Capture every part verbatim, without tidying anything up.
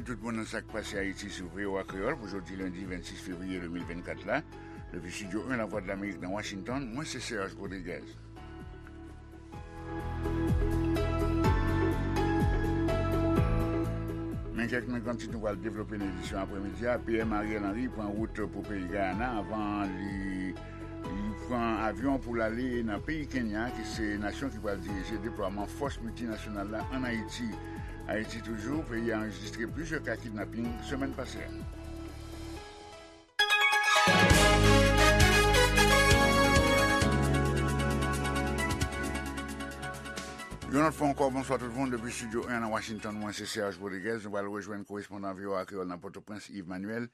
Tout moun nan sa k pase Ayiti sou V O A Kreyòl pou jodi lendi vennsis fevriye de mil vennkat la. Depi Estidyo en Lavwadlamerik nan Washington, mwen se Serge Rodriguez. Men kèk nan gran tit nou pral devlope nan edisyon aprèmidi a. P M Ariel Henry pran wout pou peyi Gayana avan li, li pran avyon pou l ale nan peyi Kenya, ki se nasyon ki pral dirije deplwaman fòs miltinasyonal la ann Ayiti. Ayiti toujou, peyi a anrejistre plizyè ka kidnaping semèn pase a. Yon lòt fwa ankò, bonswa tout moun. Depi Estidyo en nan Washington, mwen se Serge Rodriguez. Nou pral rejwenn korespondan V O A Kreyòl nan Pòtoprens, Yves Manuel.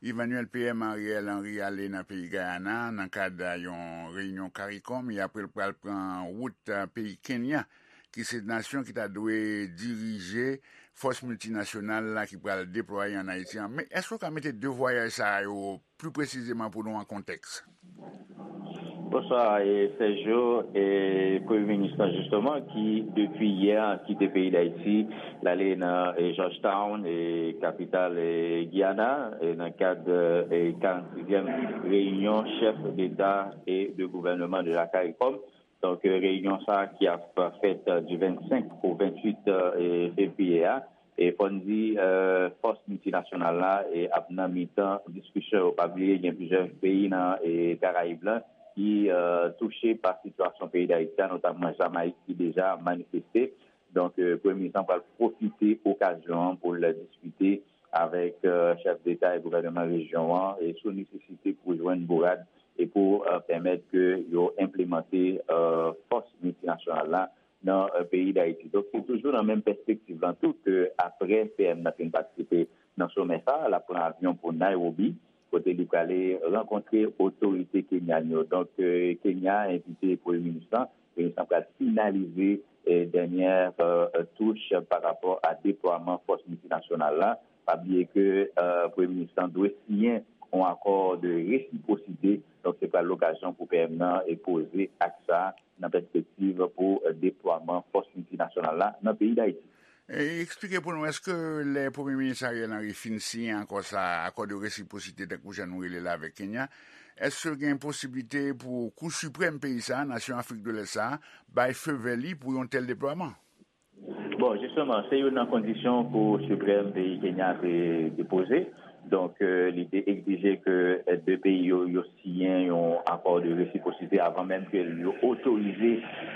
Yves Manuel, P M Ariel Henry ale nan peyi Gayana nan kad yon reyinyon CARICOM, e apre l pral pran wout, eh, peyi Kenya, ki se nasyon ki ta dwe dirije fòs miltinasyonal la ki pral deplwaye ann Ayiti an. Men èske w ka mete de vwayaj sa yo pli presizeman pou nou an kontèks? Bonswa, e, Sergio, e, Premye Minis lan, jisteman, ki depi yè kite peyi Dayiti, l ale nan, e, Georgetown, e, kapital, e, Giyana, e, nan kad, e, karannsizyèm reyinyon chèf deta e de gouvènman de la CARICOM. Donk, e, reyinyon sa a ki ap fèt, e, di vennsenk o venntuit, e, fevriye a, e fò n di, e, fòs miltinasyonal la, e, ap nan mitan diskisyon yo. Pa bliye, gen plizyè peyi nan, e, Karayib la ki, e, touche pa sitiyasyon peyi Dayiti a, notamman Jamayik ki deja manifeste. Donk, e, Premye Minis lan pral pwofite okazyon an pou l diskite avèk, e, chèf deta e gouvènman rejyon an, e sou nesesite pou jwenn bourad e pou, e, pèmèt ke yo enplemante, e, fòs miltinasyonal la nan, e, peyi Dayiti. Donk, se toujou nan menm pèspektiv lan tou ke apre P M nan fin patisipe nan somè sa a, l ap pran avyon pou Nairobi, kote li prale rankontre otorite kenyan yo. Donk, e, Kenya envite Premye Minis lan, Premye Minis lan pral finalize, e, dènyè, e, e, touch pa rapò a deplwaman fòs miltinasyonal la. Pa bliye ke, e, Premye Minis lan dwe siyen yon akò de resipwosite. Donk, se pral lokazyon pou P M nan, e, poze ak sa nan pèspektiv pou, e, deplwaman fòs miltinasyonal la nan peyi Dayiti. E eksplike pou nou, èske lè Premye Minis Ariel Henry fin siyen akò sa, akò de resipwosite, tankou jan nou rele l avèk Kenya, èske gen posiblite pou Kou Siprèm peyi sa, nasyon Afrik de Lès sa, bay feu vè li pou yon tèl deplwaman? Bon, jisteman, se youn nan kondisyon Kou Siprèm peyi Kenya te, te poze. Donk, e, li te egzije ke, e, de peyi yo, yo siyen yon akò de resipwosite avan menm ke yo otorize,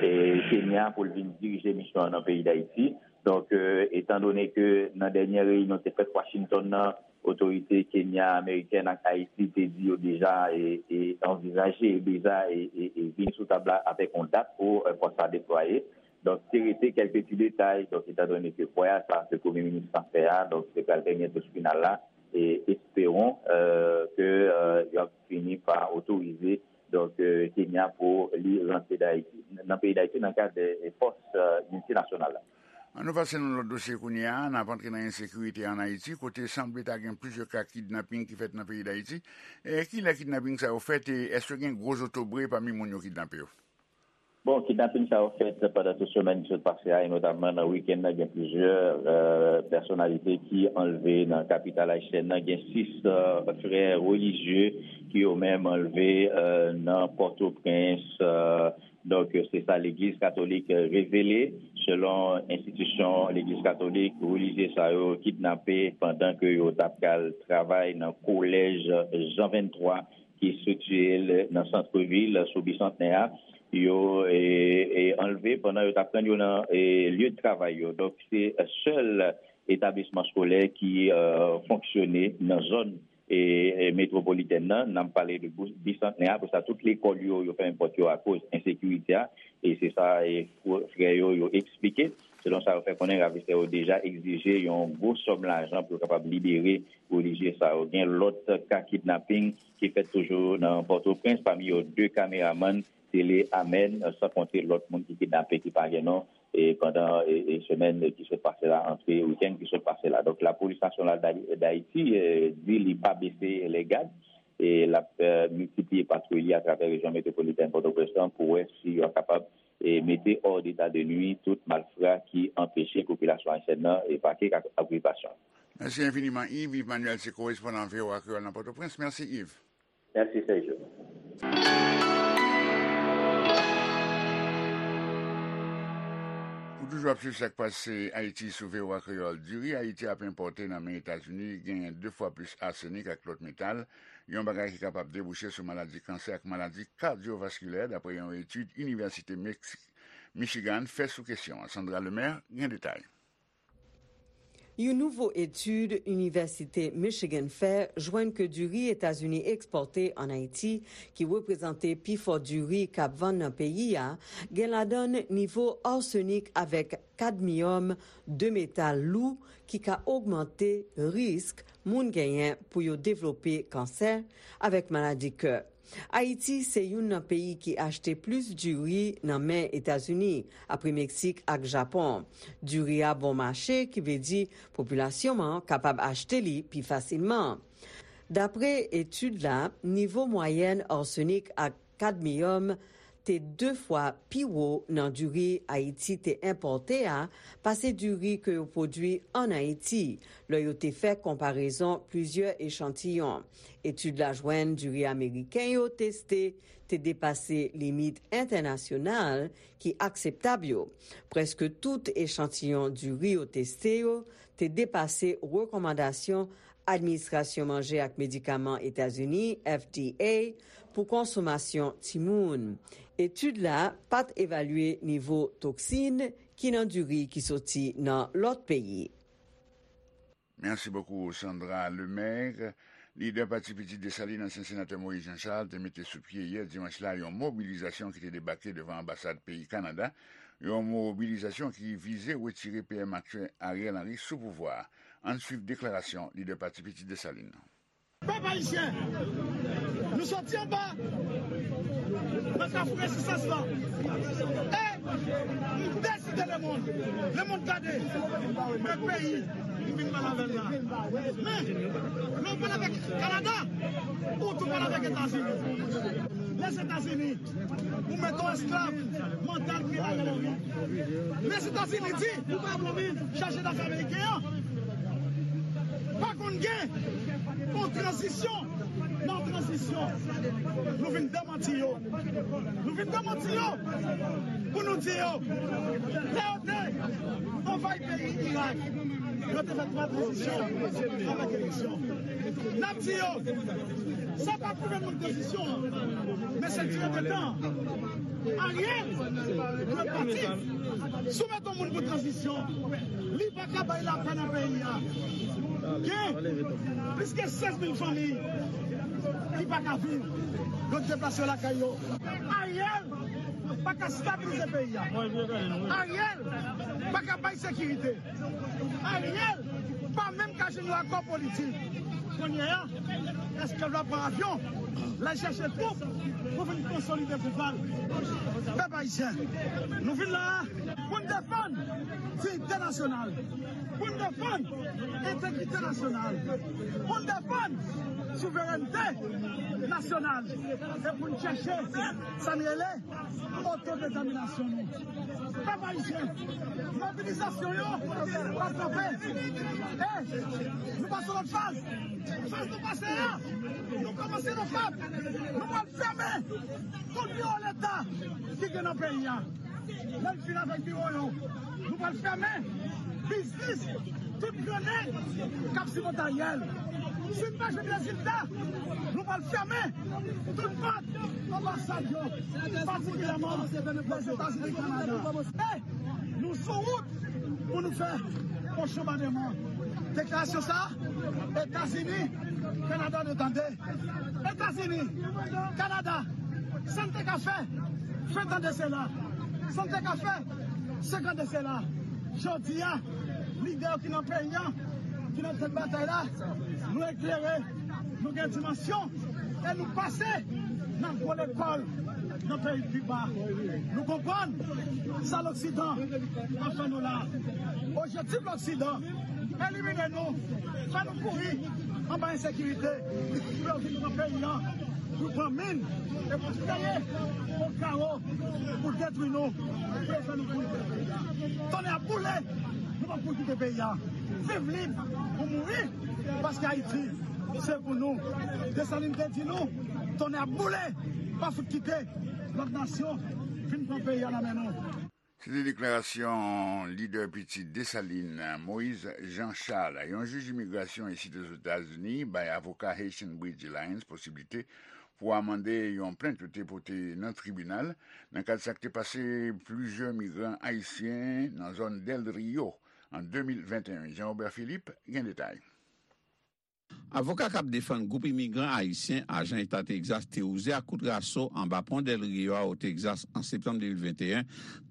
e, Kenya pou l vin dirije misyon an nan peyi Dayiti. Donk, e, etan done ke nan dènyè reyinyon te fèt Washington nan, otorite Kenya, amerikèn ak Ayiti te di yo deja, e, e, anvizaje, e, deja, e, e, e, vin sou tab la avèk yon dat pou, e, fòs sa deplwaye. Donk, te rete kèlke ti detay. Donk, etan done ke vwayaj sa ke Premye Minis lan fè a, donk, se pral dènye touch final la, e esperon, e, ke, e, y ap fini pa otorize, donk, e, Kenya pou li rantre Dayiti, nan peyi Dayiti, nan kad, e, fòs, e, miltinasyonal la. An nou pase nan lòt dosye kounye a, n ap antre nan ensekirite ann Ayiti, kote sanble ta gen plizyè ka kidnaping ki fèt nan peyi Dayiti. E kilè kidnaping sa yo fèt, e èske gen gwo zotobre pami moun yo kidnape yo? Bon, kidnaping sa yo fèt pandan tout semèn ki sot pase a, e notamman nan wikenn nan, gen plizyè, e, pèsonalite ki anlve nan kapital ayisyèn nan. Gen sis, e, frè relijye ki yo menm anlve, e, nan Pòtoprens, e, Donk, se sa Legliz Katolik revele. Selon enstitisyon Legliz Katolik, relijye sa yo kidnape pandan ke yo t ap pral travay nan kolèj Jan venntwa ki estriktiye l nan santvil sou Bisantnè a. Yo, e, e, anlve pandan yo t ap rann yo nan, e, lye de travay yo. Donk, se sèl etablisman eskolè ki, e, fonksyone nan zòn e, e, metwopolitèn nan, n ap pale de Bou-, Bisantnè a, apre sa, tout lekòl yo, yo fèmen pòt yo akoz ensekirite a, e se sa, e, fr-, frè yo, yo eksplike. Selon sa yo fè konnen, ravistè yo deja egzije yon gwo sòm lajan pou yo kapab libere relijye sa yo. Gen lòt ka kidnaping ki fèt toujou nan Pòtoprens, pami yo de kameramann tele Amèn, san konte lòt moun ki kidnape ki pa gen non, e pandan, e, e semèn ki sot pase la, antre wikenn ki sot pase la. Donk, Lapolis Nasyonal Dali-, Dayiti, e, di li pa bese lègad, e l ap, e, miltipliye patwouy li atravè rejyon metwopolitèn Pòtoprens lan pou wè si yo kapab, e, mete hors d'état de nuire tout malfra ki anpeche popilasyon ayisyèn nan, e, vake ak okipasyon. Mèsi enfiniman, Yves. Yves Manuel se korespondan V O A Kreyòl nan Pòtoprens. Mèsi, Yves. Mèsi, Sergio. Ou toujou ap swiv sa k pase Ayiti sou V O A Kreyòl. Diri Ayiti ap enpòte nan men Etazini genyen de fwa plis asenik ak lòt metal, yon bagay ki kapab debouche sou maladi kansè ak maladi kadyovaskilè, dapre yon etid Inivèsite Meksik, Michigan fè sou kesyon an. Sandra Lemaire gen detay. Yon nouvo etid Inivèsite Michigan fè jwenn ke diri Etazini ekspòte ann Ayiti, ki reprezante pifò diri k ap vann nan peyi a, gen ladan l nivo asenik avèk kadmiyòm, de metal lou ki ka ogmante risk moun genyen pou yo devlope kansè avèk maladi kè. Ayiti se youn nan peyi ki achte plis diri nan men Etazini, apre Meksik ak Japon. Diri a bon mache, ki vle di popilasyon an kapab achte li pi fasilman. Dapre etid la, nivo mwayèn asenik ak kadmiyòm te de fwa pi wo nan diri Ayiti te enpòte a pase diri ke yo pwodui ann Ayiti, lè yo te fè konparezon plizyè echantiyon. Etid la jwenn diri ameriken yo teste te depase limit entènasyonal ki akseptab yo. Prèske tout echantiyon diri yo teste yo te depase rekòmandasyon Administrasyon Manje ak Medikaman Etazini, F D A, pou konsomasyon timoun. Etid la pa t evalye nivo toksin ki nan diri ki soti nan lòt peyi. Mèsi bokou, Sandra Lemaire. Lidè Pati Pitit Desalin, ansyen senatè Moïse Jean Charles, te mete sou pye yè dimanch la yon mobilizasyon ki te debake devan anbasad peyi Kanada, yon mobilizasyon ki vize retire P M aktyèl Ariel Henry sou pouvwa a. Ann swiv deklarasyon lidè Pati Pitit Desalin nan. Pèp ayisyen, nou soti anba nan kafou rezistans lan. E m deside lemonn, lemonn gade, men peyi m vin pale avè l la. Men, lè w pale avèk Kanada, ou tou pale avèk Etazini. Lèzetazini, ou mete w esklav mantal ki la rele wi. Lèzetazini di, chaje dafè ameriken an, pa konn gen yon tranzisyon nan tranzisyon. Nou vin demanti yo. Nou vin demanti yo pou nou di yo, lè yo te anvayi peyi Irak, yo te fè twa tranzisyon avèk eleksyon. N ap di yo, sa pa gouvènman tranzisyon an, men se dirijan tan. Ariel dwe pati. Si w mete yon moun pou tranzisyon, li pa ka bay lapè nan peyi a. Gen plis ke sèz mil fanmi ki pa ka viv. Yo deplase yo lakay yo. Ariel pa ka stabilize peyi a. Ariel pa ka bay sekirite. Ariel pa menm ka jwenn yon akò politik. Kounye a, èske l va pran avyon, l al chèche twoup pou vin konsolide pouvwa l? Pèp ayisyen, nou vin la a pou n defann diyite nasyonal, pou n defann entegrite nasyonal, pou n defann souverènte nasyonal e pou n chèche sa n rele otodetèminasyon nou. Pèp ayisyen, mobilizasyon yo pa kanpe. E nou pase lòt faz. Faz nou pase a, nou kòmanse nan fab. Nou pral fèmen tout biwo Leta ki gen nan peyi a. Lè l fin avèk biwo yo, nou pral fèmen biznis tout gran nèg k ap sipòte Ariel. Si n pa jwenn rezilta, nou pral fèmen tout pòt anbasad yo, patikilyèman Lèzetazini, Kanada. E nou sou wout pou nou fè pwòch bonbademan. Deklarasyon sa a, Etazini, Kanada dwe tande. Etazini, Kanada, sa n te ka fè ven tan de sela, sa n te ka fè senk an de sela. Jodi a, lidè yo ki nan peyi a, ki nan tèt batay la, nou eklere, nou gen dimansyon e nou pase nan gwo lekòl nan peyi Kiba. Nou konprann sa Loksidan ap fè nou la. Objektif Loksidan, elimine nou, fè nou kouri anba ensekirite, pou yo vin pran peyi a, pou pran min e pou kreye yon kawo pou detwi nou, pou yo fè nou kouri. Tonnè ap boule! Pou kite peyi a. Viv lib ou mouri, paske Ayiti se pou nou. Desalin te di nou, tonnè ap boule, pa fout kite lòt nasyon vin pran peyi a nan men nou. Se te deklarasyon lidè piti Desalin, Moïse Jean Charles. Yon jij imigrasyon isit Ozetazini bay avoka Haitian Bridge Alliance posiblite pou amande yon plent yo te pote nan tribinal nan kad sa k te pase plizyè migran ayisyen nan zòn Del Rio an de mil venteyen. Jean Robert Philippe gen detay. Avoka k ap defann gwoup imigran ayisyen ajan eta Tegzas te wouze ak kout raso anba pon Del Rio a o Tegzas an septanm de mil venteyen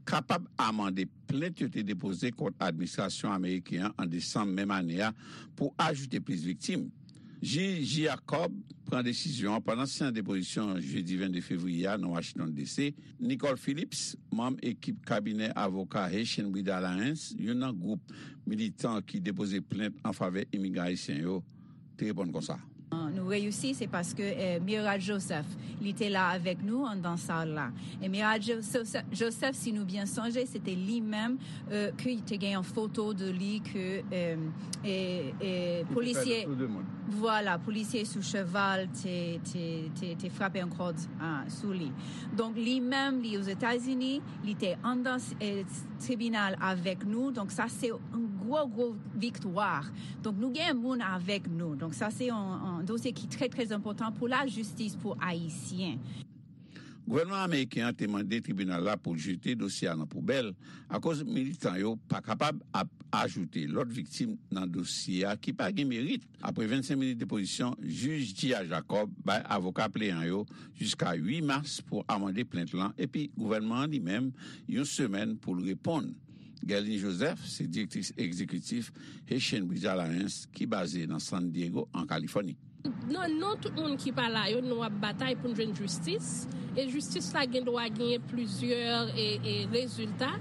kapab amande plent yo te depoze kont administrasyon ameriken an an desanm menm ane a pou ajoute plis viktim. Jij Jacob pran desizyon an pandan seyans depozisyon jedi vennde fevriye a nan Washington D C. Nicole Phillips, manm ekip kabinè avoka Haitian Bridge Alliance, youn nan gwoup militan ki depoze plent an favè imigran ayisyen yo, te reponn konsa. Nou reyisi, se paske eh, Mira Joseph, li te la avèk nou anndan sal la. E Mira Joseph, si nou byen sonje, se te li menm eh, ke te gen yon foto de li ke eh, eh, polisye, vwala, polisye sou cheval te, te, te, te frape yon kòd ah, sou li. Donk, li menm, li Ozetazini, li te anndan eh, tribinal avèk nou. Donk, sa se yon gwo, gwo viktwa. Donk, nou gen moun avèk nou. Donk, sa se yon, yon dosye ki trè, trè enpòtan pou lajistis pou Ayisyen. Gouvènman ameriken an te mande tribinal la pou l jete dosye a nan poubèl akoz militan yo pa kapab ap ajoute lòt viktim nan dosye a ki pa gen merit. Apre vennsenk minit depozisyon, jij Gia Jacob bay avoka pleyan yo jiska uit mas pou amande plent lan epi gouvènman an li menm yon semèn pou l reponn. Guerline Joseph se direktris egzekitif Haitian Bridge Alliance ki baze nan San Diego, an Kalifòni. Nan non tout moun ki pa la yo, nou ap batay pou n jwenn jistis. E jistis la gen dwa genyen plizyè e, e rezilta.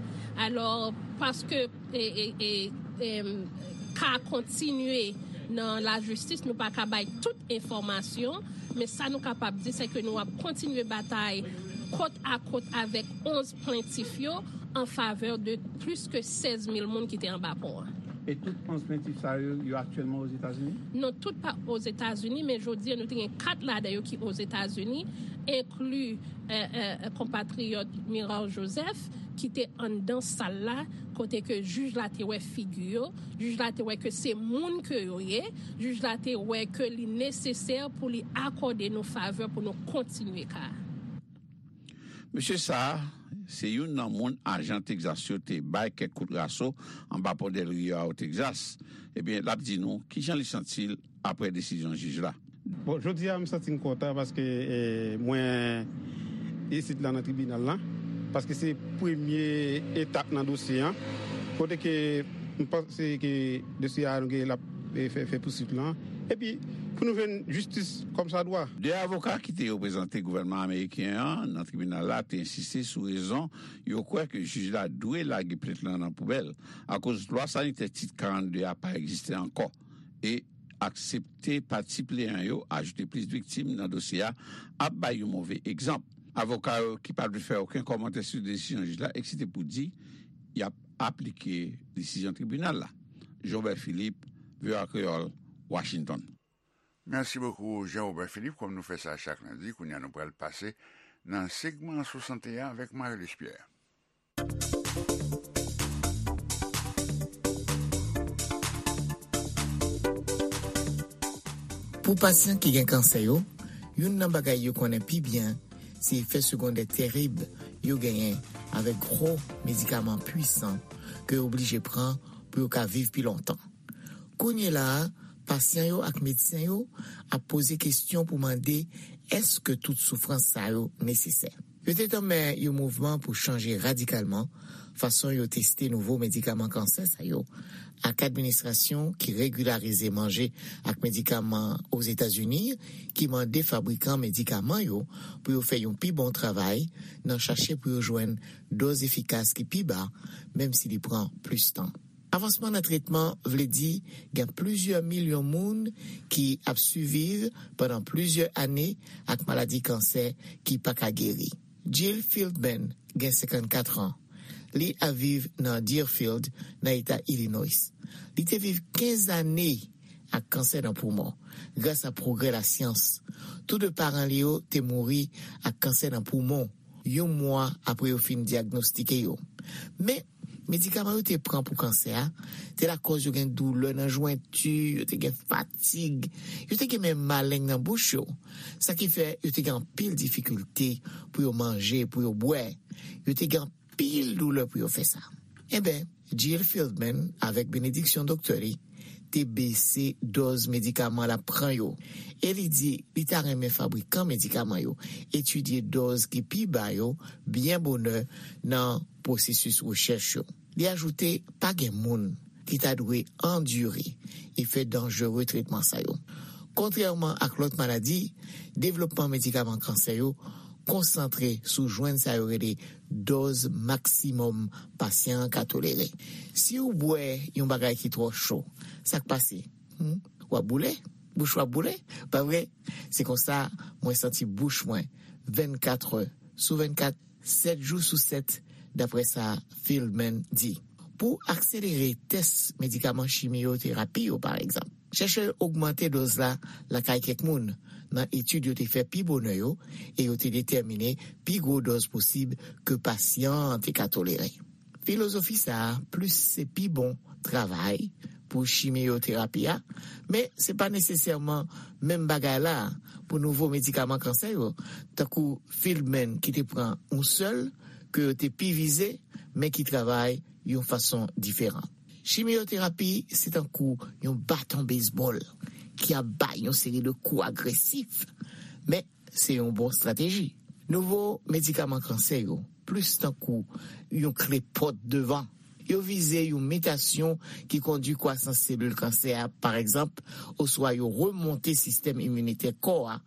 Alò, paske e, e, e, e, ka kontinye nan lajistis, nou pa ka bay tout enfòmasyon, men sa nou kapab di, se ke nou ap kontinye batay kot a kot avèk onz plentif yo an favè de plis ke sèz mil moun ki te anba pon an. E tout onz plentif sa yo, yo aktyèlman Ozetazini? Non, tout pa Ozetazini, men jodi a nou te gen kat ladan yo ki Ozetazini, enkli eh, eh, konpatriyòt Miral Joseph, ki te anndan sal la, kote ke jij la te wè figi yo, jij la te wè ke se moun ke yo ye, jij la te wè ke li nesesè pou li akòde nou favè pou nou kontinye ka. Mesye sa a, se youn nan moun ajan Tegzas yo te bay kèk kout raso anba pon Del Rio a o Tegzas. Ebyen, l ap di nou kijan li santi l apre desizyon jij la. Bon, jodi a, m santi m kontan paske eh, mwen isit la nan tribinal la, paske se premye etap nan dosye an, kote ke m panse ke dosye a nou gen l ap eh, fè, fè pousuit lan. Epi, pou nou jwenn jistis kòmsadwa. De avoka ki te reprezante gouvènman ameriken an nan tribinal la te ensiste sou rezon yo kwè ke jij la dwe lage plent lan nan poubèl, akoz lwa sanitè tit karannde a pa egziste ankò. E aksepte pati pleyan yo ajoute plis viktim nan dosye a ap bay yon move egzanp. Avoka yo ki pa vle fè okenn kòmantè sou desizyon jij la eksite pou di y ap aplike desizyon tribinal la. Jobert Philippe, V O A Kreyòl, Washington. Mèsi bokou, Jean Robert Philippe. Kòm nou fè sa chak lendi, kounye a nou pral pase nan segman swasannteyen avèk Marie-Luce Pierre. Pou pasyan ki gen kansè yo, youn nan bagay yo konnen pi byen se efè segondè terib yo genyen avèk gwo medikaman pwisan ke yo oblije pran pou yo ka viv pi lontan. Kounye la a, pasyan yo ak medsen yo ap poze kesyon pou mande èske tout soufrans sa yo nesesè. Yo te tanmen yon mouvman pou chanje radikalman fason yo teste nouvo medikaman kansè sa yo, ak administrasyon ki regilarize manje ak medikaman Ozetazini ki mande fabrikan medikaman yo pou yo fè yon pi bon travay nan chache pou yo jwenn dòz efikas ki pi ba, menm si li pran plis tan. Avansman nan tretman vle di gen plizyè milyon moun ki ap siviv pandan plizyè ane ak maladi kansè ki pa ka geri. Jill Philbin gen senkannkat an. Li ap viv nan Deerfield, nan eta Illinois. Li te viv kenz ane ak kansè nan poumon, gras a pwogrè lasyans. Tou de paran li yo te mouri ak kansè nan poumon yon mwa apre yo fin dyagnostike yo. Men, medikaman yo te pran pou kansè a te lakòz yo gen doulè nan jwenti, yo te gen fatig, yo te gen menm maleng nan bouch yo. Sa ki fè yo te gen anpil difikilte pou yo manje, pou yo bwè. Yo te gen anpil doulè pou yo fè sa. Enben, Jill Fieldman, avèk benediksyon doktè li, te bese dòz medikaman l ap pran yo. E li di li ta renmen fabrikan medikaman yo etidye dòz ki pi ba yo byen bonè nan pwosesis rechèch yo. Li ajoute pa gen moun ki ta dwe andire efè danjere tretman sa yo. Kontrèman ak lòt maladi, devlopman medikaman kansè yo konsantre sou jwenn sa yo rele dòz maksimòm pasyan an ka tolere. Si w bwè yon bagay ki twò cho, sa k pase? Hmm? W ap boule? Bouch w ap boule? Pa vre? Se konsa mwen santi bouch mwen vennkat è sou vennkat, sèt jou sou sèt, dapre sa Fieldman di. Pou akselere tès medikaman chimiyoterapi yo, pa egzanp, chèchè yo ogmante dòz la lakay kèk moun nan etid yo te fè pi bonè yo, e yo te detèmine pi gwo dòz posib ke pasyan an te ka tolere. Filozofi sa a plis se pi bon travay pou chimiyoterapi a, men se pa nesesèman menm bagay la pou nouvo medikaman kansè yo, tankou Fieldman ki te pran yon sèl ke yo te pi vize, men ki travay yon fason diferan. Chimiyoterapi se tankou yon baton bezbòl ki ap bay yon seri de kou agresif, men se yon bon estrateji. Nouvo medikaman kansè yo plis tankou yon kle pòt devan. Yo vize yon mitasyon ki kondui kwasans selil kansè a, pa egzanp, oswa yo remonte sistèm iminitè kò a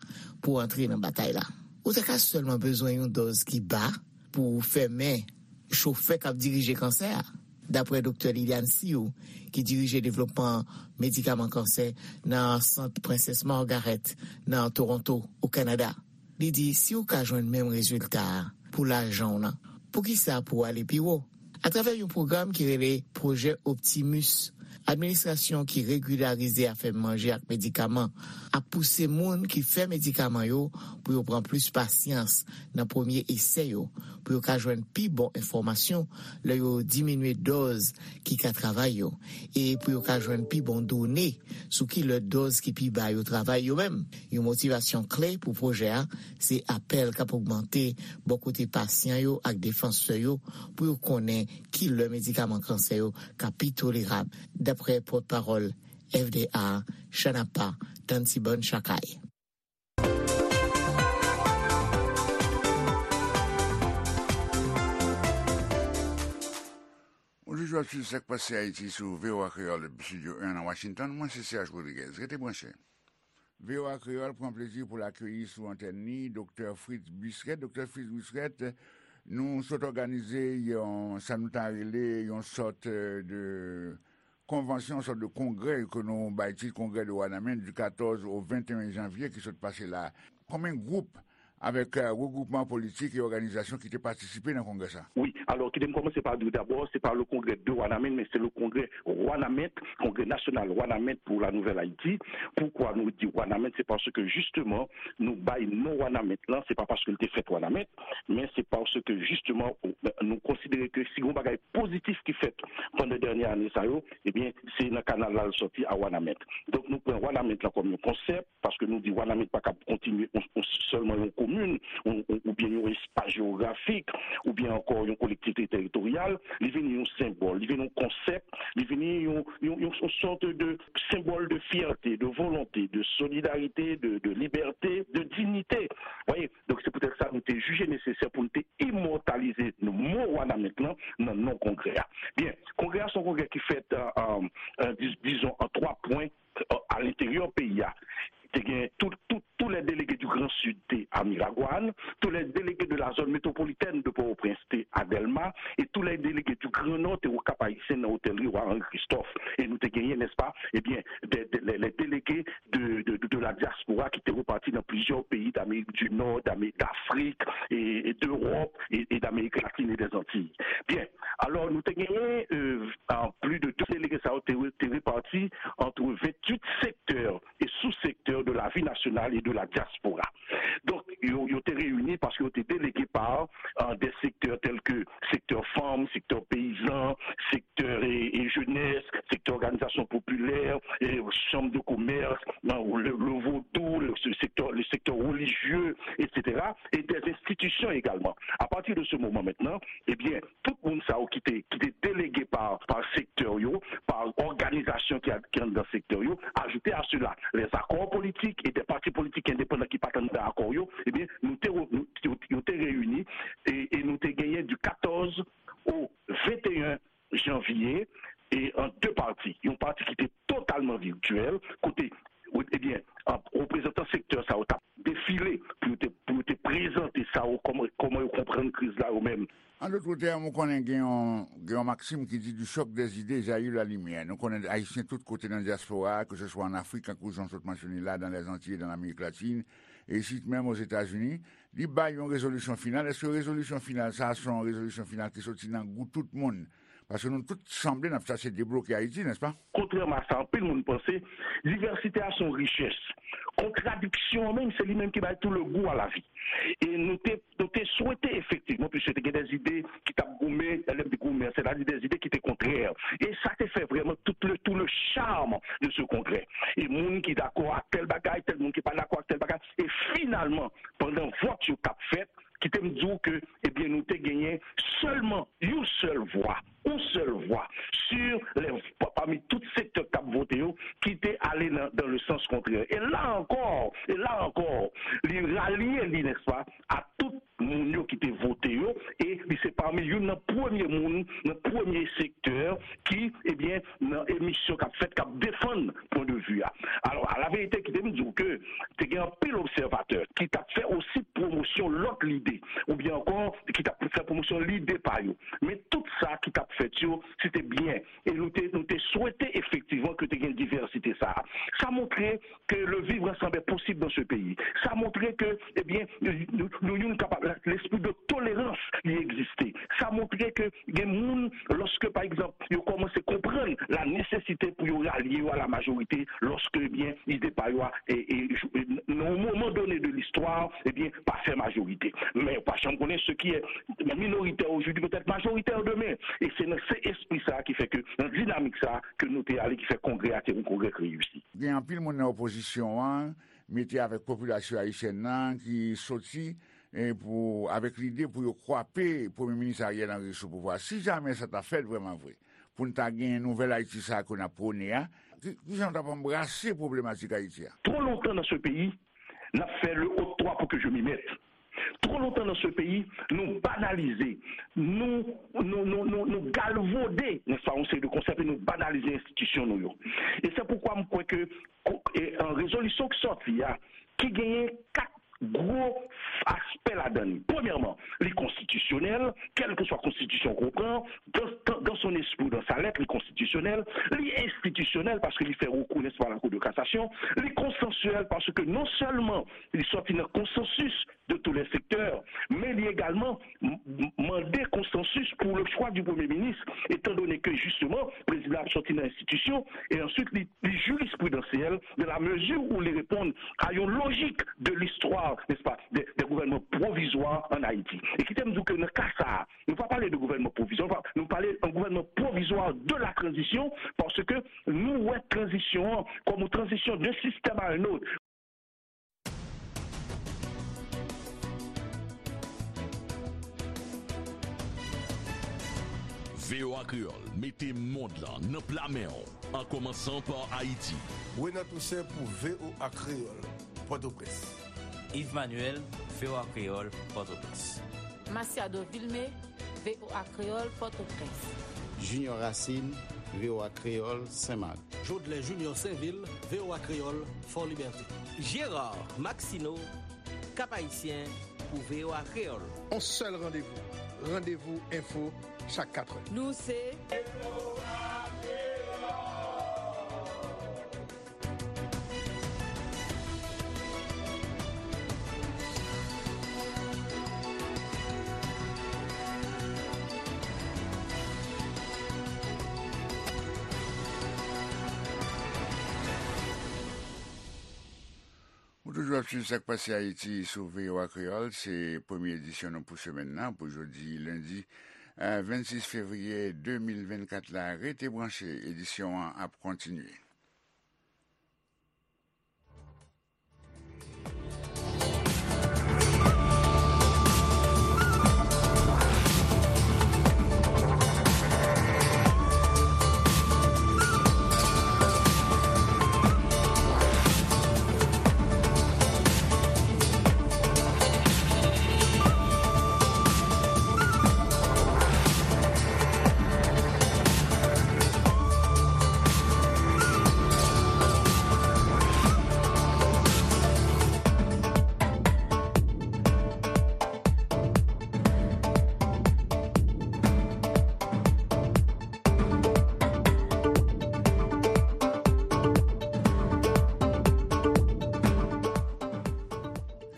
pou antre nan batay la. Ou ta ka sèlman bezwen yon dòz ki ba pou fèmen chofè k ap dirije kansè a, dapre Doktè Liliane Sioux, ki dirije devlopman medikaman kansè nan Sant Prensès Margaret nan Toronto, o Kanada. Li di si w ka jwenn menm rezilta a pou lajan w nan, poukisa pou w ale pi wo? Atravè yon pwogram ki rele Pwojè Optimus, administrasyon ki regilarize afè manje ak medikaman ap pouse moun ki fè medikaman yo pou yo pran plis pasyans nan premye esè yo, pou yo ka jwenn pi bon enfòmasyon lè yo diminye dòz ki ka travay yo, e pou yo ka jwenn pi bon done sou ki lè dòz ki pi ba yo travay yo menm. Yon motivasyon kle pou pwojè a se apèl k ap ogmante bò kote pasyan yo ak defansè yo pou yo konnen ki lè medikaman kansè yo ka pi tolerab, dapre pòtpawòl F D A, Chanapa, Tantibann Chakay. Ou toujou ap swiv Sa k Pase Ayiti sou V O A Kreyòl depi Estidyo en nan Washington. Mwen se Serge Rodriguez. Rete branche. V O A Kreyòl pran plezi pou l akeyi sou antèn li Doktè Fritz Buisret. Doktè Fritz Buisret, nou sot òganize yon, sa nou ta rele yon sòt, euh, de konvansyon, yon sòt de kongrè ke nou bay tit Congrès de Wanament du quatorze au vingt et un janvier ki sot pase la. Konbyen gwoup avèk, euh, regwoupman politik e òganizasyon ki te patisipe nan kongrè sa? Wi, alò, kite m kòmanse pa di w dabò, se pa le congrès de Wanament, men se le congrès Wanament, Congrès National Wanament pour la Nouvelle Haïti. Poukwa nou di Wanament? Se paske, jisteman, nou bay non Wanament lan, se pa paske l te fèt Wanament, men se paske, jisteman, nou konsidere ke si gen yon bagay pozitif ki fèt pandan dènye ane sa yo, ebyen, se nan kanal la l sòti a Wanament. Donk, nou pran Wanament lan kòm yon konsèp, paske nou di Wanament pa kab kontinye yon, yon, sèlman yon komin, yon, yon, oubyen yon espas jewografik, oubyen ankò yon kolektivite teritoryal. Li vini yon senbòl, li vini yon konsèp, li vini yon, yon, yon, yon sòt de senbòl de fyète, de volonte, de solidarite, de, de libète, de diyite. Voyez? Donk, se poutèt sa nou te jije nesesè pou nou te imòtalize mo Wanament lan nan non kongrè a. Byen, kongrè a se yon kongrè ki fèt, euh, euh, euh, dis-, dizon, an twa pwen, euh, a lenteryè peyi a. Te gen tout, tout, tous les délégués du Grand Sud te a Miragwàn, tous les délégués de la zone métropolitaine de Port-au-Prince te a Dèlma, et tous les délégués du Grand Nord te au Cap Haïtien nan otèl Roi Henri Christophe. E nou te genyen, n'est-ce pas, eh bien, des, des, les, les délégués de, de, de, de la diaspora qui étaient repartis dans plusieurs pays d'Amérique du Nord, d'Amérique, d'Afrique et, et d'Europe et, et d'Amérique latine et des Antilles. Bien, alors nous te genyen euh, plus de deux délégués, ça a été réparti entre vingt-huit secteurs et sous-secteurs de la vie nationale et de la diaspora. Donk, yo, yo te reyini paske yo te delege pa euh, des secteurs tels que secteur femmes, secteur paysan, secteur et, et jeunesse, secteur organisation populaire, et chambre de commerce, euh, le, le vaudou, le, ce secteur, le secteur religieux, et cetera, et des institutions également. À partir de ce moment maintenant, eh bien, tout moun sa yo ki te, ki te delege pa, pa sektè yo, pa òganizasyon ki, ki anndan sektè yo, ajoute a sela, les accords politiques et des partis politiques indépendants ki pa t anndan akò yo, ebyen, nou te, nou, yo, yo te reyini e, e nou te genyen du quatorze au vingt et un janvier e an de pati. Yon pati ki te totalman virtyèl, kote, ebyen, reprezantan sektè sa yo t ap defile pou yo te, pou yo te prezante sa yo, kòman, kòman yo konprann kriz la yo menm. En d'autres termes, ou konnen gen yon, gen yon maksim ki di du choc des idées jaillit la lumière. Nou konnen Ayisyen tout kote nan dyaspora, ke se swa an Afrik, tankou jan w sot mansyone la, dans les Antilles, dans l'Amérique latine, e isit menm Ozetazini, li bay yon rezolisyon final. Èske rezolisyon final sa a se yon rezolisyon final ki soti nan gou tout moun? Paske nou tout sanble n ap chache debloke Ayiti, nèspa? Kontrèman a sa anpil moun panse, divèsite a se yon richès. Kontradiksyon an menm, se li menm ki bay tout le goût à la vie. E nou te, nou te swete efektivman, piske te gen des idées ki t ap goumen, lè m di goumen, sètadi des idées ki te kontrè. E sa te fè vrèman tout le, tout le charme de ce congrès. E moun ki dakò ak tèl bagay, tèl moun ki pa dakò ak tèl bagay. E finalman, pandan vòt yo t ap fèt, kite m di w ke, ebyen, nou te genyen sèlman yon sèl vwa, yon sèl vwa, sur les, pa, pami tout sektè k t ap vote yo, ki te ale nan, dans le sens contraire. E la ankò, e la ankò, li ralye li, nèspa, a tout moun yo ki te vote yo, e li se pami youn nan premye moun, nan premye sektè ki, ebyen, nan emisyon k ap fèt, k ap defann pwen de vi a. Alò, a la verite, kite m di w ke te gen anpil obsèvatè ki t ap fè osi pwomosyon lòt lide, oubyen ankò, ki t ap fè pwomosyon lide pa yo. Men tout sa ki t ap fèt yo, se te byen. E nou te, nou te swete efektivman ke te gen divèsite sa a. Sa montre que le vivre ensemble est possible dans ce pays. Sa montre ke, ebyen, nou, nou youn kapab, lespri de tolerans li egziste. Sa montre ke gen moun, lòske, pa egzanp, yo kòmanse konprann la nesesite pou yo ralye yo a la majorite, lòske, ebyen, ide pa yo a, e, e, e, nan yon moman done de listwa, ebyen, pa fè majorite. Men ou pa janm konnen ce qui est minoritaire aujourd'hui peut être majoritaire demain. E se nan se espri sa a ki fè ke, nan dinamik sa a, ke nou te ale, ki fè kongrè a te yon kongrè ki reyisi. Gen anpil moun nan opozisyon an mete avèk popilasyon ayisyèn nan ki soti, e pou, avèk lide pou yo kwape Premye Minis Ariel Henry sou pouvwa. Si jamè sa ta fèt vrèman vre, pou n ta gen nouvèl Ayiti sa a ke n ap pwone a, ki, ki jan w t ap anbrase pwoblematik Ayiti a? Twò lontan nan se peyi, n ap fè le haut toi pour que je m'y mette. Twò lontan nan se peyi, nou banalize, nou, nou, nou, nou, nou galvode, nèspa, yon seri de konsèp e nou banalize enstitisyon nou yo. E se poukwa m kwè ke ko-, e, an rezolisyon ki sòti a, ki genyen kat gwo aspè ladan li. Premyèman, li konstitisyonèl, kèlkeswa konstitisyon ke w pran, dans, dans, dans son esprit ou dans sa lettre, li konstitisyonèl, li enstitisyonèl, paske li fè rekou, nèspa, la Cour de cassation, li konsansyèl, paske non sèlman li sòti nan konsansis de tous les secteurs, men li egalman m-, m-, mande konsansis pour le choix du Premier ministre, étant donné que, justement, prezidan ap sòti nan enstitisyon, e answit li, li jirisprudansyèl, dans la mesure où li reponn a yon lojik de l'histoire, n'est-ce pas, des, des gouvernements provisoires en Haïti. E kite m di w ke nan ka sa a, nou pa pale de gouvènman pwovizwa, nou pa, nou pale an gouvènman pwovizwa de la transition, paske nou wè tranzisyon an kòm yon tranzisyon de système à un autre. V O A Kreyòl mete mond lan nan pla men w, an kòmansan pa Ayiti. Renan Toussaint pou V O A Kreyòl, Pòtoprens. Yves Manuel, V O A Kreyòl, Pòtoprens. Masiado Vilmé, V O A Kreyòl, Pòtoprens. Junior Racine, V O A Kreyòl, Senmak. Jodlè Junior Sainvil, V O A Kreyòl, Fòlibète. Gérard Maxineau, Cap Haïtien pou V O A Kreyòl. On sèl randevou, Randevou Enfo, chak katrè. Nou se Ou toujou ap swiv Sa k Pase Ayiti sou V O A Kreyòl. Se premye edisyon nou pou semèn nan, pou jodi lendi, eh, vennsis fevriye de mil vennkat la. Rete branche, edisyon an ap kontinye.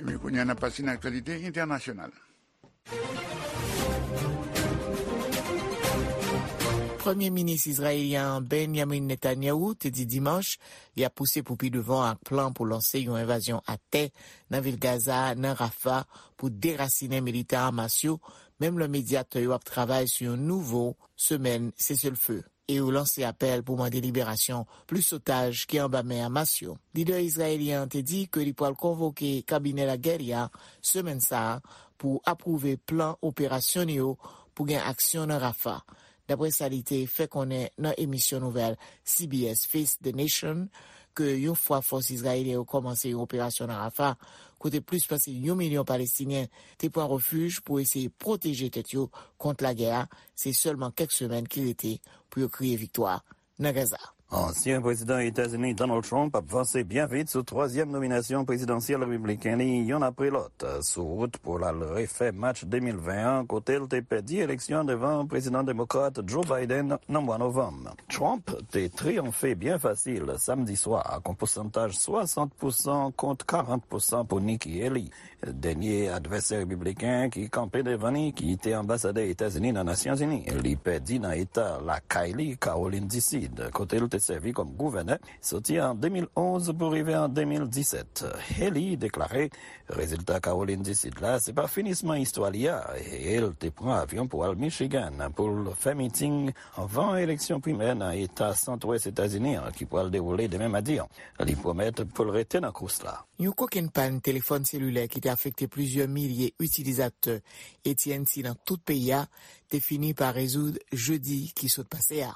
Ebyen, kounye a n ap pase nan aktyalite entènasyonal. Premye minis izrayelyen an, Benjamin Netanyahu, te di dimanch li ap pouse pou pi devan ak plan pou lanse yon envazyon atè nan vil Gaza, nan Rafah, pou derasinen militan Hamas yo, menm lè medyatè yo ap travay sou yon nouvo semèn seselfe. E yo lanse apèl pou mande liberasyon plis otaj ki anba men Hamas yo. Lidè izrayelyen an te di ke li pral konvoke kabinè lagè li a semèn sa a pou apwouve plan operasyon li yo pou gen aksyon nan Rafah, dapre sa li te fè konnen nan emisyon nouvèl C B S Face the Nation, ke yon fwa fòs izrayelyen yo kòmanse yon operasyon nan Rafah, kote plis pase yon milyon Palestinyen te pran refij pou eseye pwoteje tèt yo kont lagè a, se sèlman kèk semèn ki rete pou yo kriye viktwa nan Gaza. Ansyen prezidan Etazini Donald Trump ap vanse byen vit sou twazyèm nominasyon prezidansyèl repibliken li, youn apre lòt, sou wout pou l al refè match de mil ven an, kote l te pèdi eleksyon devan prezidan demokrat Joe Biden nan mwa novanm. Trump te triyonfe byen fasil samdi swa ak yon pousantaj swasant pousan kont karant pousan pou Nikki Haley, dènye advèsè repibliken ki kanpe devan li, ki te anbasadè Etazini nan Nasyonzini. Li pèdi nan eta lakay li, Kawolin di Sid, kote l te sèvi kòm gouvènè soti an de mil onz pou rive an de mil disèt. Haley deklare rezilta Kawolin di Sid la se pa finisman istwa li a, e l te pran avyon pou al Michigan pou l fè miting anvan eleksyon primè nan eta sant-wès Etazini an ki pral dewoule demen madi an. Li pwomèt pou l rete nan kous la. Yon kokenn pàn telefòn selilè ki te afekte plizyè milye itilizatè A T and T nan tout peyi a te fini pa rezoud jedi ki sot pase a.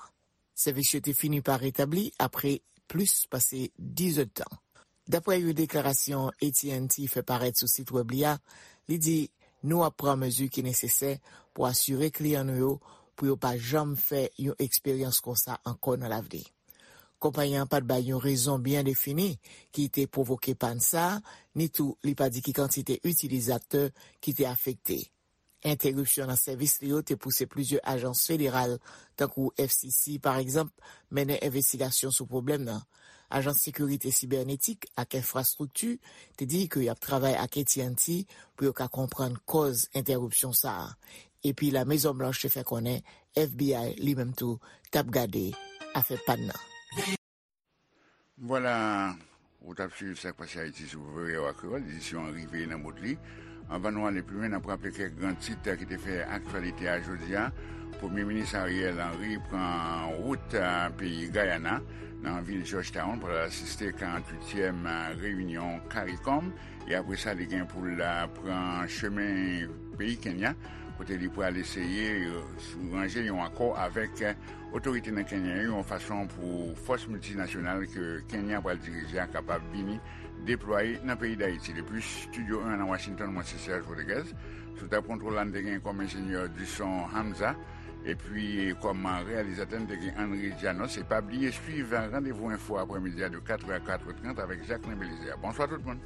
Sèvis yo te fini pa retabli apre plis pase diz èdtan. Dapre yon deklarasyon A T and T fè parèt sou sit wèb li a, li di, "Nou ap pran mezi ki nesesè pou asire kliyan nou yo pou yo pa janm fè yon eksperyans konsa ankò nan lavni." Konpayi an pa t bay yon rezon byen defini ki te pwovoke pàn sa a, ni tou li pa di ki kantite itilizatè ki te afekte. Entèripsyon nan sèvis li yo te pouse plizyè ajans federal, tankou F C C, pa egzanp, mennen envestigasyon sou pwoblèm nan. Ajans Sekirite Sibènetik ak Enfrastrikti te di ke y ap travay ak A T and T pou yo ka konprann kòz entèripsyon sa a. Epi La Mezon Blanch te fè konnen F B I li menm tou t ap gade afè pàn nan. Vwala, ou t ap swiv Sa k Pase Ayiti sou V O A Kreyòl, edisyon an rive nan bout li. Anvan nou ale pi lwen, n ap raple kèk gran tit ki te fè aktyalite a jodi a. Premye minis Ariel Henry pran wout, a, peyi Gayana, nan vil Georgetown, pou l al asiste karanntuityèm, a, reyinyon CARICOM. E apre sa, li gen pou l, a, pran chemen peyi Kenya, kote li pral eseye, e, ranje yon akò avèk, e, otorite nan Kenya yo, yon fason pou fòs miltinasyonal ke Kenya pral dirije a kapab vini deplwaye nan peyi Dayiti. Depi Estidyo en nan Washington, mwen se Serge Rodriguez. Sou tab kontwòl la, n te gen kòm enjenyè di son Hamza. Epi, kòm reyalizatè, n te gen Henry Dianos. E pa bliye swiv Randevou Enfo aprèmidi a de katrè a katrè trant avèk Jacqueline Belizaire. Bonswa tout moun.